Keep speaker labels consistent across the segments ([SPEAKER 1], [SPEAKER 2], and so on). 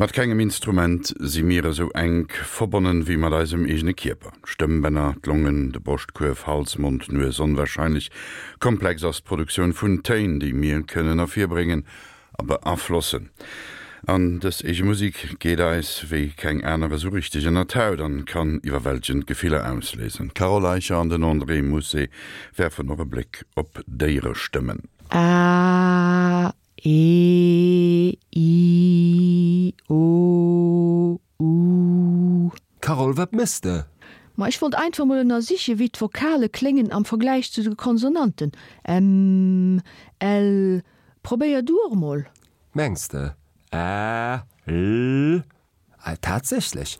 [SPEAKER 1] Mat kengem Instrument si mir esou enk verbonnen wéi mat eisem eegene Kierper. D'Stëmmbänner, d'Longen, de Broschtkuerf, Hals, Mond, Nues, onwahrscheinlech komplex ass d'Produktioun vun Téin, déi mir kënnen ervirbréngen a beaflossen. An dës eege Musek geet eis wéi keng aner esou richteg ënner d'Haut an kann iwwerwältegend Gefiller ausléisen. D'Carole Eicher an den André Mousset werfen och e Bléck op Déierestëmmen.
[SPEAKER 2] A E I O U.
[SPEAKER 3] Carole, wat méchs de?
[SPEAKER 2] Ma ech wollt einfach mol ënnersichen, wéi d'Vokale kléngen am Vergläich zu de Konsonanten, M, L. Probéier du och mol.
[SPEAKER 3] Mengs de? Ä, L. Tatsächlech,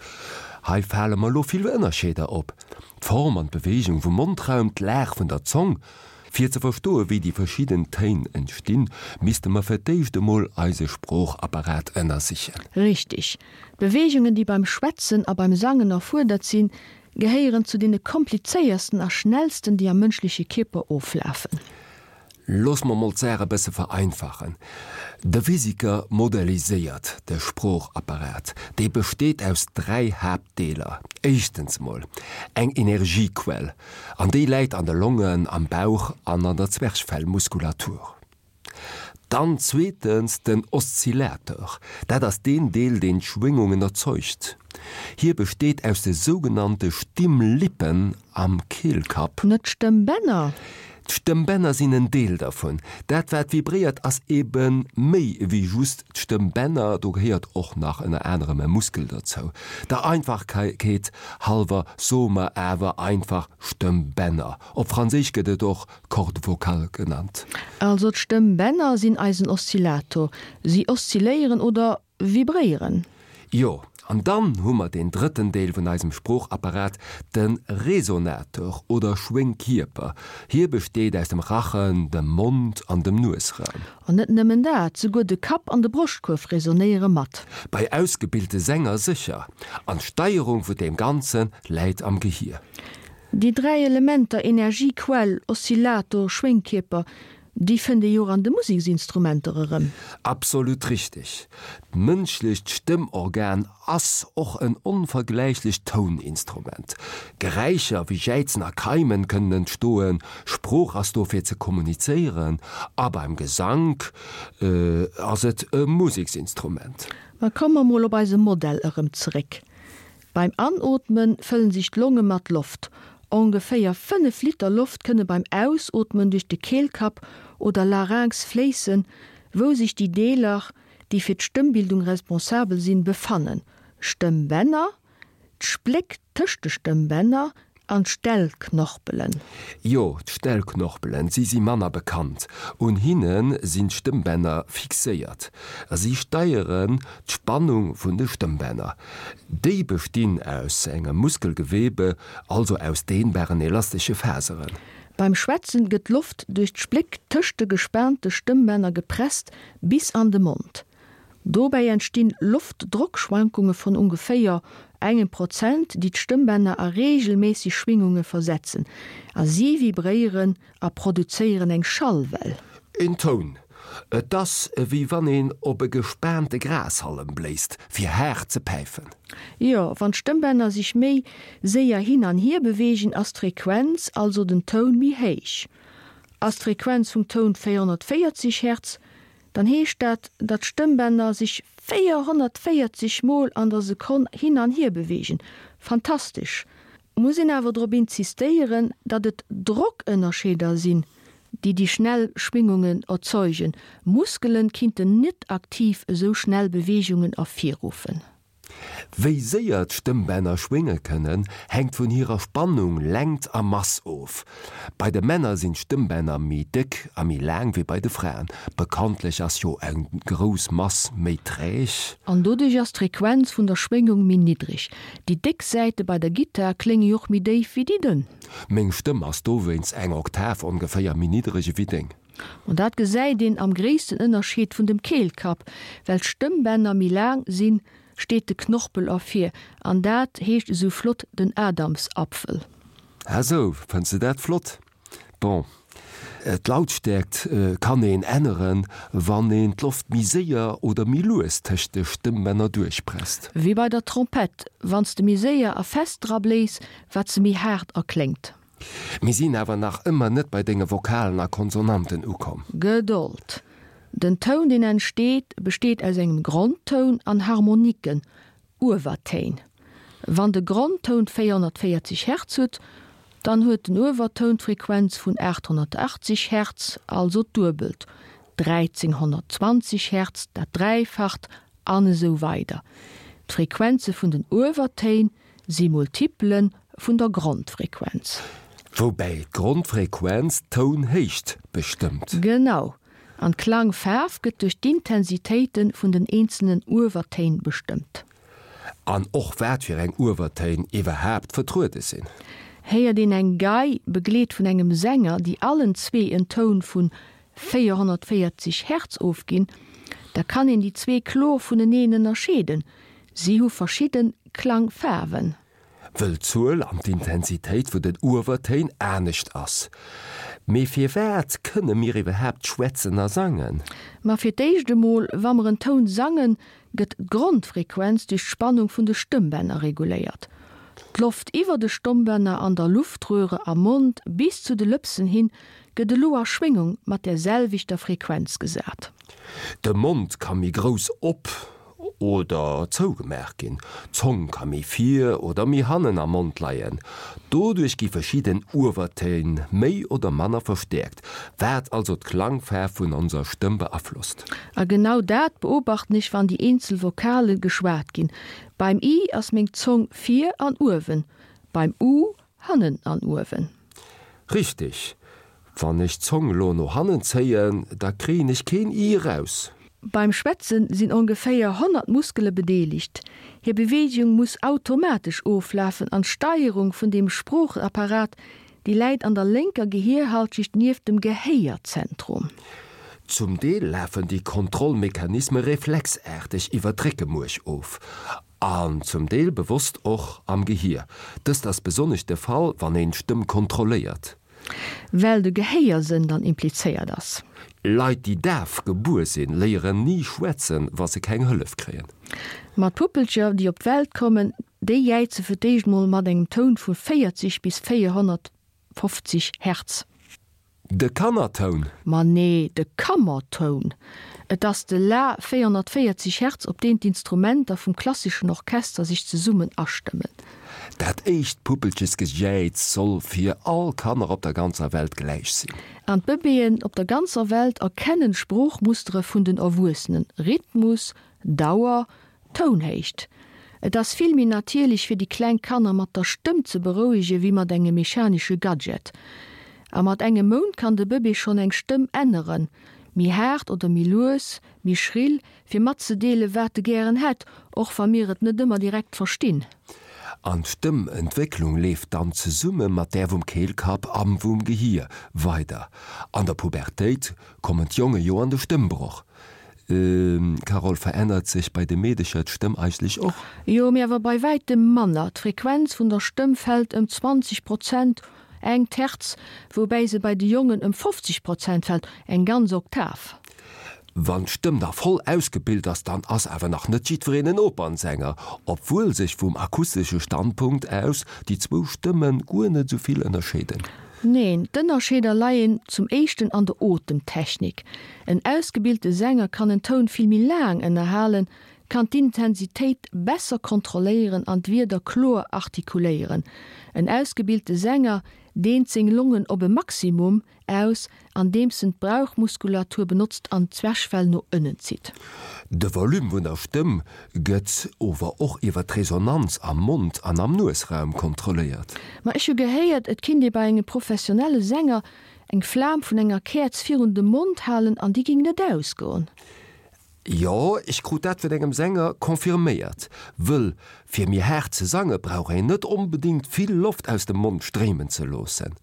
[SPEAKER 3] hei fale mer elo vill Ënnerscheeder op, d'Form an d'Beweegung vum Mondraum, d'Lag vun der Zong. Fir ze verstoe wéi déi verschidden Téin entstinn, misste mer fir d'éischt emol eise Sproochapparat ënnersichen.
[SPEAKER 2] Richtig. D'Beweegungen, déi beim Schwätzen a beim Sangen erfuerdert sinn, gehéieren zu deene komplizéiersten a schnellsten, déi am mënschleche Kierper oflafen.
[SPEAKER 3] Looss mer mol d'Saach e bësse vereinfachen, De Physiker modelliséiert de Sproochapparat. Dee besteet aus 3 Haaptdeeler. Éischtens mol eng Energiequell, an déi läit an de Longen, am Bauch an an der Zwerchfellmuskulatur. Dann zweetens den Oszillateur, dat ass deen Deel, deen d'Schwéngungen erzeugt. Hie besteet aus de sougenannte Stimmlippen am Keelkapp.
[SPEAKER 2] Net d'Stëmmbänner?
[SPEAKER 3] D'Stëmmbänner sinn en Deel dervun. Dat wat vibréiert ass ebe méi ewéi just d'Stëmmbänner, do gehéiert och nach ënner anerem e Muskel dozou. Der Einfachkeet hallwer soe mer awer einfach Stëmmbänner. Op Franséisch gëtt et och Cordes vocales genannt.
[SPEAKER 2] Also d'Stëmmbänner sinn eisen Oszillator. Si oszilléieren oder Vibréieren.
[SPEAKER 3] Jo, an dann hu mer deen drëtten Deel vun eisem Sproochapparat, de Resonator oder Schwéngkierper. Hie besteet aus dem Rachen, dem Mond an dem Nuesraum.
[SPEAKER 2] An net nëmmen dat, souguer de Kapp an de Broschtkuerf resonéiere mat.
[SPEAKER 3] Bei ausgebilte Sänger sécher. An d'Steierung vun deem Ganze läit am Gehier.
[SPEAKER 2] Déi 3 Elementer Energiequell, Oszillator, Schwéngkierper, Déi fënnt ee jo och an de Museksinstrumenter erëm.
[SPEAKER 3] Absolut richteg. D'mënschlecht Stëmmorgan ass och en onvergläichlecht Touninstrument. Geräischer wéi Jäizen a Keimen kënnen entstoen, Sprooch ass do fir ze kommunizéieren a beim Gesank ass et e Museksinstrument.
[SPEAKER 2] Ma komme mer mol op eise Modell erëm zeréck. Beim Anootme fëllen sech d'Longe mat Loft. Ongeféier 5 Liter Loft kënne beim Ausootmen duerch de Keelkapp oder Larynx fléissen, wou sech déi Deeler, déi fir d'Stëmmbildung responsabel sinn, befannen, Stëmmbänner, d'Spléck tëscht de Stëmmbänner an d'Stellknorpelen.
[SPEAKER 3] Jo, d'Stellknorpelen, si si manner bekannt. Un hinne sinn d'Stëmmbänner fixéiert. Si steieren d'Spannung vun de Stëmmbänner. Déi bestinn aus engem Muskelgewebe, also aus dehnbaren elastesche Faseren.
[SPEAKER 2] Beim Schwätzen gëtt d'Loft duerch d'Spléck tëscht de gespaante Stëmmbänner gepresst bis an de Mond. Dobäi entstinn Loftdrockschwankunge vun ongeféier engem Prozent, déi d'Stëmmbänner a reegelméisseg Schwingunge versetzen, a si vibréieren a produzéieren eng Schallwell.
[SPEAKER 3] Een Toun. Et ass ewéi wann een op e gespaante Grashallem bléist, fir haart ze päifen.
[SPEAKER 2] Jo, wann d'Stëmmbänner sech méi séier hin an hier beweegen, ass d'Frequenz, also den Toun, méi héich. Ass d'Frequenz vum Toun 440 Hertz, Dann heescht dat, datt d'Stëmmbänner sech 440 Mol an der Sekonn hin an hier beweegen. Fantastesch! Muss een awer drop insistéieren, datt et Drockënnerscheeder sinn, déi déi schnell Schwingungen erzeugen. Muskelen kinnten net aktiv esou schnell Beweegungen ervirruffen.
[SPEAKER 3] Wéi séier d'Stëmmbänner schwénge kënnen, hänkt vun hirer Spannung, Längt a Mass of. Bei de Männer sinn d'Stëmmbänner méi déck a méi laang wéi bei de Fraen. Bekanntlech ass jo eng grouss Mass méi träg.
[SPEAKER 2] An doduerch ass d'Frequenz vun der Schwéngung méi niddreg. Déi déck Säite bei der Gittar klénge jo och méi déif wéi déi dënn.
[SPEAKER 3] Meng Stëmm ass dowéinst eng Oktav ongeféier méi niddreg ewéi deng.
[SPEAKER 2] An dat gesäit een am gréissten Ënnerscheed vun dem Keelkapp, well d'Stëmmbänner méi laang sinn, steet de Knorpel ervir, an dat heescht esou flott den Adamsapfel.
[SPEAKER 3] Ah sou, fënns de dat flott? Bon. D'Lautstäerkt kann een änneren, wann een d'Loft méi séier oder méi lues tëscht de Stëmmbänner duerchpresst.
[SPEAKER 2] Wéi bei der Trompett, wann s de méi séier a fest dra bléis, wat se méi haart erkléngt.
[SPEAKER 3] Mir sinn awer nach ëmmer net bei denge Vokalen a Konsonanten ukomm.
[SPEAKER 2] Gedold! Den Toun, deen entsteet, besteet aus engem Grondtoun an Harmoniken, Uewertéin. Wann de Grondtoun 440 Hertz huet, dann huet den Uewertoun d'Frequenz vun 880 Hertz, also d'Duebelt, 1320 Hertz dat Dräifacht, an esou weider D'Frequenze vun den Uewertéin si Multipele vun der Grondfrequenz.
[SPEAKER 3] Woubäi d'Grondfrequenz d'Tounhéicht bestëmmt.
[SPEAKER 2] Genau. An d'Klangfaarf gëtt duerch d'Intensitéite vun den eenzelnen Uewertéin bestëmmt.
[SPEAKER 3] An och wat fir eng Uewertéin iwwerhaapt vertruede sinn.
[SPEAKER 2] Héiert een eng Gei, begleet vun engem Sänger, déi allen zwee en Toun vun 440 Hertz ofginn, da kann een déi zwee kloer vuneneen ënnerscheeden, si hu verschidde Klangfaarwen.
[SPEAKER 3] Wëll d'Zuel an d'Intensitéit vun den Uewertéin anescht ass. Mee firwat kënne mir iwwerhaapt schwätzen a sangen?
[SPEAKER 2] Ma fir d'éischt emol, wa mer en Toun sangen, gëtt d'Grondfrequenz duerch d'Spannung vun de Stëmmbänner reguléiert. D'Loft iwwer de Stommbänner an der Luftröhre am Mond bis zu de Lëpsen hin gëtt elo a Schwéngung mat där selwechter Frequenz gesat.
[SPEAKER 3] De Mond ka méi grouss op oder zougemaach ginn. D'Zong ka méi vir oder méi hannen am Mond leien. Doduerch gi verschidden Uewertéin méi oder manner verstäerkt, wat also d'Klangfaarf vun onser Stëmm beaflosst.
[SPEAKER 2] A genau dat beobachten ech wann déi eenzel Vokale geschwat ginn. Beim i ass meng Zong vir an uewen, beim u hannen an uewen.
[SPEAKER 3] Richteg, Wann ech d'Zong lo no hannen zéien, da kréien ech keen i eraus.
[SPEAKER 2] Beim Schwätzen sinn ongeféier 100 Muskele bedeelegt. Hir Beweegung muss automatesch oflafen an d'Steierung vun deem Sproochapparat, déi läit an der lénker Gehierhalschicht nieft dem Gehéierzentrum.
[SPEAKER 3] Zum Deel lafen déi Kontrollmechanisme reflexaarteg iwwer d'Réckemuerch of an zum Deel bewosst och am Gehier. Dëst ass besonnesch de Fall, wann een d'Stëmm kontrolléiert.
[SPEAKER 2] Well de Gehéiersënn dann implizéiert ass.
[SPEAKER 3] Leit déi daf gebuer sinn, léieren ni schwätzen, wa se keng Hëllef kréien.
[SPEAKER 2] Ma d'Puppelcher déi op d'Welt kommen, déi jäize fir d'éischt mol mat engem Toun vu 40 bis 450 Hertz.
[SPEAKER 3] De Kannertoun?
[SPEAKER 2] Ma nee, de Kammertoun. Et ass de La 440 Hertz, op deen d'Instrumenter vum klasseschen Orchester sech zesummen astëmmen.
[SPEAKER 3] Dat éischt Puppelchesgejäiz soll fir all Kanner op der ganzer Welt gläich sinn.
[SPEAKER 2] An d'Bëbeeën op der ganzer Welt erkennen d'Sproochmustere vun den Erwuessenen, Rhythmus, Dauer, Tounhéicht. Et ass vill méi natierlech fir déi kleng Kanner mat der Stëmm ze berouege wéi mat engem mechanesche Gadget. A mat engem Mount kann de Bëbee schonn eng Stëmm änneren, méi haart oder méi lues, méi schrill, fir matzedeele wat e gären hätt, och wa mir et net ëmmer direkt verstinn.
[SPEAKER 3] An d'Stëmmentwécklung leeft dann zesumme mat där vum Keelkapp a vum Gehier weider. An der Pubertéit kommen d'Jonge jo an de Stëmmbroch. Carole, Verännert sech bei de Meedecher d'Stëmm eigentlech och?
[SPEAKER 2] Jo, mee awer bei wäitem manner. D'Frequenz vun der Stëmm fält ëm 20 Prozent, eng Terz, woubäi se bei de Jongen ëm 50 Prozent fält, eng ganz Oktav.
[SPEAKER 3] Wann d'Stëmm da voll ausgebilt ass, dann ass awer nach net jiddwereen en Opernsänger, obwuel sech vum akustesche Standpunkt aus déi zwou Stëmme guer net esou vill ënnerscheeden.
[SPEAKER 2] Neen, d'Ënnerscheeder leien zum éischten an der Otemtechnik. En ausgebilte Sänger kann en Toun vill méi laang ënnerhalen, kann d'Intensitéit besser kontrolléieren an d'Wierder kloer artikuléieren. En ausgebilte Sänger deent seng Longen op e Maximum aus, andeems en d'Brauchmuskulatur benotzt an d'Zwerchfell no ënnen zitt.
[SPEAKER 3] De Volume vun der Stëmm gëtt ower och iwwer d'Resonanz am Mond an am Nuesraum kontrolléiert.
[SPEAKER 2] Ma ech hu gehéiert, et kinnt ee bei engem professionelle Sänger eng Flam vun enger Käerz virun de Mond halen an déi ging net ausgoen.
[SPEAKER 3] Jo, ech krut dat vun engem Sänger confirméiert. Wëll fir méi haart ze sange brauch een net onbedingt vill Loft aus dem Mond stréimen ze loossen.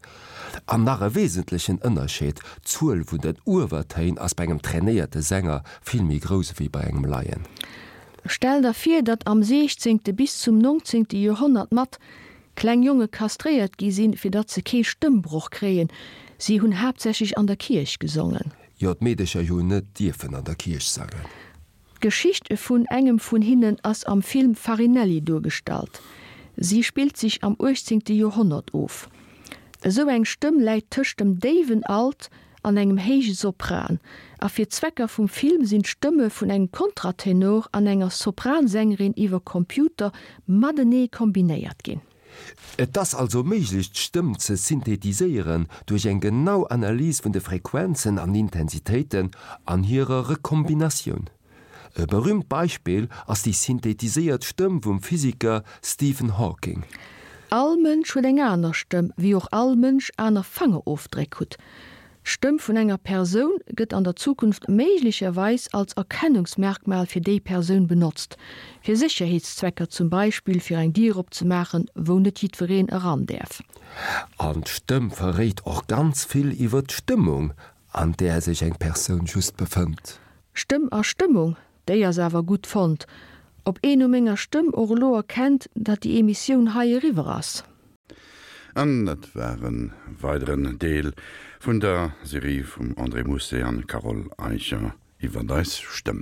[SPEAKER 3] An nach e wesentlechen Ënnerscheed, D'Zuel vun den Uewertéin ass bei engem trainéierte Sänger vill méi grouss ewéi bei engem Laien.
[SPEAKER 2] Stell der vir, datt am siechzéngte bis zum nongzéngte Joerhonnert mat kleng Jonge kastréiert gi sinn, fir datt se kee Stëmmbroch kréien. Si hunn haaptsächlech an der Kierch gesongen.
[SPEAKER 3] Jo, d'Meedecher hu net dierfen an der Kierch sangen.
[SPEAKER 2] D'Geschicht vun engem vun hinnen ass am Film Farinelli duergestallt. Si spillt sech am 18. Joerhonnert of. Esou eng Stëmm läit tëscht dem déiwen Alt an engem héije Sopran, a fir d'Zwecker vum Film sinn d'Stëmme vun engem Kontratenor an enger Sopransängerin iwwer Computer matenee kombinéiert ginn.
[SPEAKER 3] Et ass also méiglech d'Stëmm ze synthetiséieren duerch eng genau Analys vun de Frequenzen an Intensitéiten an hirer Rekombinatioun. E berüümt Beispill ass déi synthetiséiert Stëmm vum Physiker Stephen Hawking.
[SPEAKER 2] All Mënsch huet eng aner Stëmm, wéi och all Mënsch aner Fangerofdréck hutt. D'Stëmm vun enger Persoun gëtt an der Zukunft méiglecherweis als Erkennungsmerkmal fir déi Persoun benotzt, fir Sécherheetszwecker, zum Beispill fir eng Dier opzemaachen, wou net jiddwereen eran däerf.
[SPEAKER 3] An d'Stëmm verréit och ganz vill iwwer d'Stëmmung, an där sech eng Persoun just befënnt.
[SPEAKER 2] Stëmm a Stëmmung, déi ass awer gutt fonnt. Ob een u menger Stëmm och elo erkennt, datt déi Emissioun hei eriwwer ass?
[SPEAKER 1] An dat war e weideren Deel vun der Serie vum André Mousset an Carole Eicher iwwert eis Stëmm.